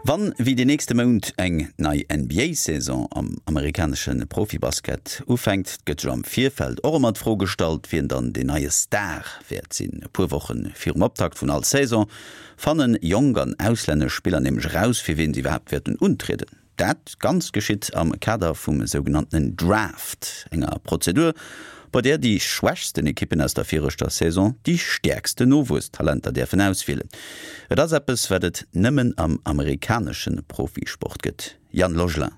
Wann wéi den nächste Mount eng nei NBA-Saison am amerikanesche Profibasket ufänkt, gëtt sech am Virfeld och ëmmer d'Fro gestallt, wien dann deen neie Star wäert sinn. E puer Woche virum Optakt vun all Saison fanne jonk an auslännesch Spiller nämlech eraus, fir wien se iwwerhaapt wäerten untrieden. Dat Ganzt geschitt am Kader vum sougenanntenen Draft, enger Prozedur, bei där déi schwächsten Ekippen aus der viregter Saison déi stäerksten Nowuesstalenter däerfen auswielen. Et ass eppes, wat et nëmmen am amerikanesche Profisport gëtt. Yann Logelin.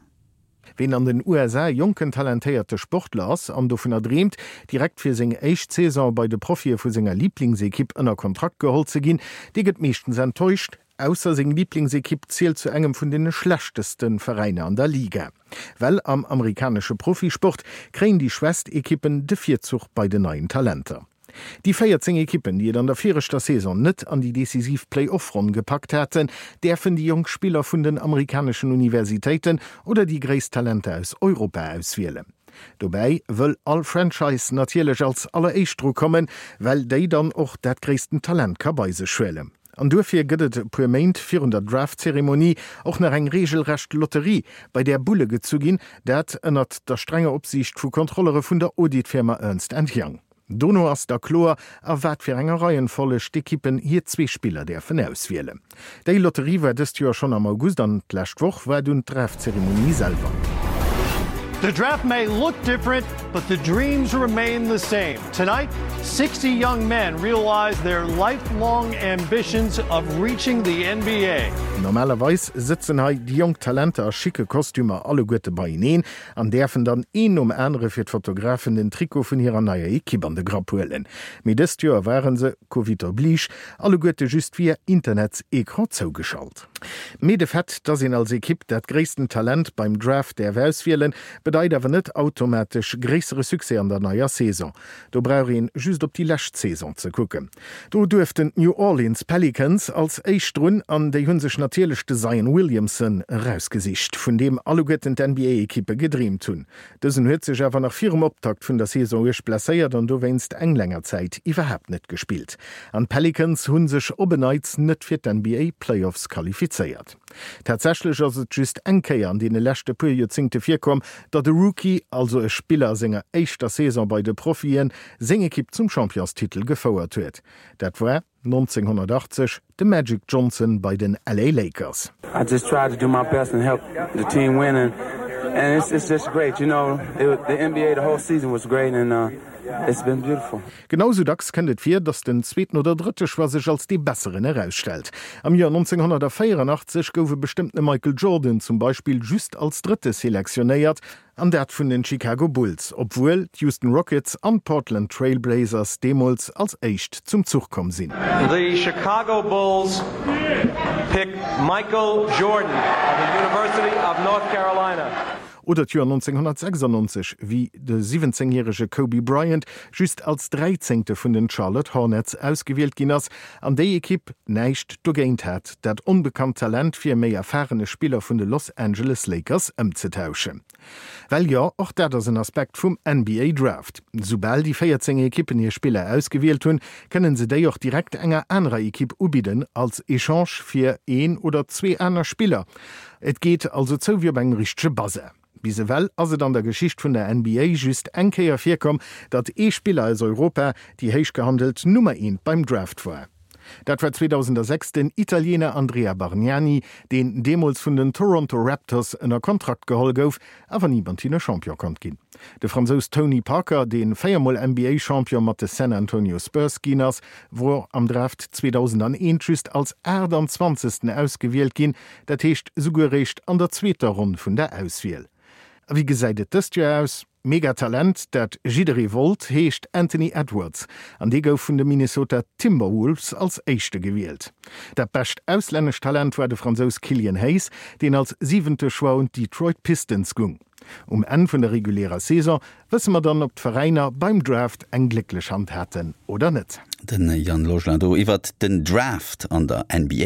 Ween an den USA jonken talentéierte Sportler ass an dovunner dreemt, direkt fir seng éischt Saison bei de Profie vu senger Liblingsekipp ënner Kontrakt geholl ze ginn, dee gëtt meeschtens enttäuscht. Ausser seng Liblingsekipp zielt zu engem vun den schlechteste Veräiner an der Liga. Well am amerikanesche Profisport kréien déi schwächst Ekippen de Virzuch bei den neien Talenter. Déi 14 Ekippen, déi et an der viregter Saison net an déi decisiv Play-Off-Ronn gepackt haten, däerfen déi jonk Spiller vun den amerikaneschen Universitéiten oder déi gréisst Talenter aus Europa auswielen. Dobäi wëll all Franchise natierlech als alleréischt dru kommen, well déi dann och dat gréissten Talent ka bei sech huelen. An duerfir gëtt et e puer Méint virun der Draft-Zeremonie och nach eng reegelrecht Lotterie, bei där Bulle gezu ginn, dat ënnert der strenger Opsiicht vu Kontrollere vun der Auditfirma Ernst and Young. Dono ass da kloer, a wat fir enger Reihenfolleg d'Ekippen hir zwee Spiller däerfen auswielen. Déi Lotterie war dëst Joer schonn am August an d'lescht Woch war dunn d'Draft-Zeremonie selwer. The draft may look different, but the dreams remain the same. Tonight, 60 young men realize their lifelong ambitions of reaching the NBA. Normalerweis sëtzen hei déi jonk Talenter a schicke Kostümer alleguerte beieneen an däerfen dann een nom anere fir d'Fotografen den Trikot vun hirer neier Ekipp an de Grapp huelen. Mee dëst Joer ware se, Covid oblige, alleguerte just via Internets-Ecran zougeschalt. Mee de Fait, dass een als Ekipp dat gréissten Talent beim Draft däerf auswielen, bedeit awer net automatesch gréissere Succès an der neier Saison. Do brauch een just op déi lescht Saison ze kucken. Do duerften d'New Orleans Pelicans als éischt drun an déi hu sech natierlech de Zion Williamson erausgesicht, vun deem alleguerten d'NBA-Ekippe gedreemt hunn. Dësen huet sech awer nach virum Optakt vun der Saison uerg blesséiert an dowéinst eng länger Zäit iwwerhaapt net gespillt. An d'Pelicans hu sech op en Neits net fir d'NBA Playoffs qualifizéiert. Tatsächlech ass et just eng Kéier an deene leschte puer Joerzéngte virkomm, datt e Rookie, also e Spiller a senger éischter Saison bei de Profien, seng Ekipp zum Championstitel gefouert huet. Dat war 1980 de Magic Johnson bei den LA Lakers. I just try to do my best and help the team win and and it's it's just great you know the NBA the whole season was great and it's been beautiful. Genau sou dacks kënnt et vir, datt den zweeten oder drëtte Choix sech als dee besseren erausstellt. Am Joer 1984 gouf e bestëmmtene Michael Jordan zum Beispill just als Drëtte selektionéiert, an dat vun den Chicago Bulls, obwuel d'Houston Rockets an d'Portland Trail Blazers deemools als éischt zum Zuch komm sinn. The Chicago Bulls pick Michael Jordan of the University of North Carolina. Oder d'Joer 1996, wéi de 17 järege Kobe Bryant just als Dräizéngte vun den Charlotte Hornets ausgewielt ginn ass an déi Ekipp näischt dogéint hat, dat onbekannt Talent fir e méi erfarene Spiller vun de Los Angeles Lakers ëmzetauschen. Well jo, och dat ass en Aspekt vum NBA Draft. Soubal déi 14 Ekippen hir Spiller ausgewielt hunn, kënnen se déi och direkt enger anerer Ekipp ubidden als Echange fir een oder zwee aner Spiller. Et geet also zou wéi op engem richtege Bazar. Bis ewell ass et an der Geschicht vun der NBA just eng Kéier virkomm, datt ee Spiller aus Europa déi héich gehandelt Nummer eent beim Draft war. Dat war 2006 den Italiener Andrea Bargnani, deen deemools vun den Toronto Raptors ënner Kontrakt geholl gouf, awer ni mat hinne Champion konnt ginn. De Fransous Tony Parker, dee véiermol NBA-Champion mat de San Antonio Spurs ginn ass, wor am Draft 2001 just als 28. Ausgewielt ginn, Dat heescht esouguer eréischt an der zweeter Ronn vun der Auswiel. A wéi gesäit et dëst Joer aus? Megatalent, dat jidderee wollt, heescht Anthony Edwards an dee gouf vun de Minnesota Timberwolves als éischte gewielt. Dat bescht auslännescht Talent war de Fransous Killian Hayes, deen als siwente Choix un d'Detroit Pistons gung. Um Enn vun der regulärer Saison wësse mer dann, ob d'Veräiner beim Draft eng glécklech Hand haten oder net. Den Yann Logelin do iwwert den Draft an der NBA.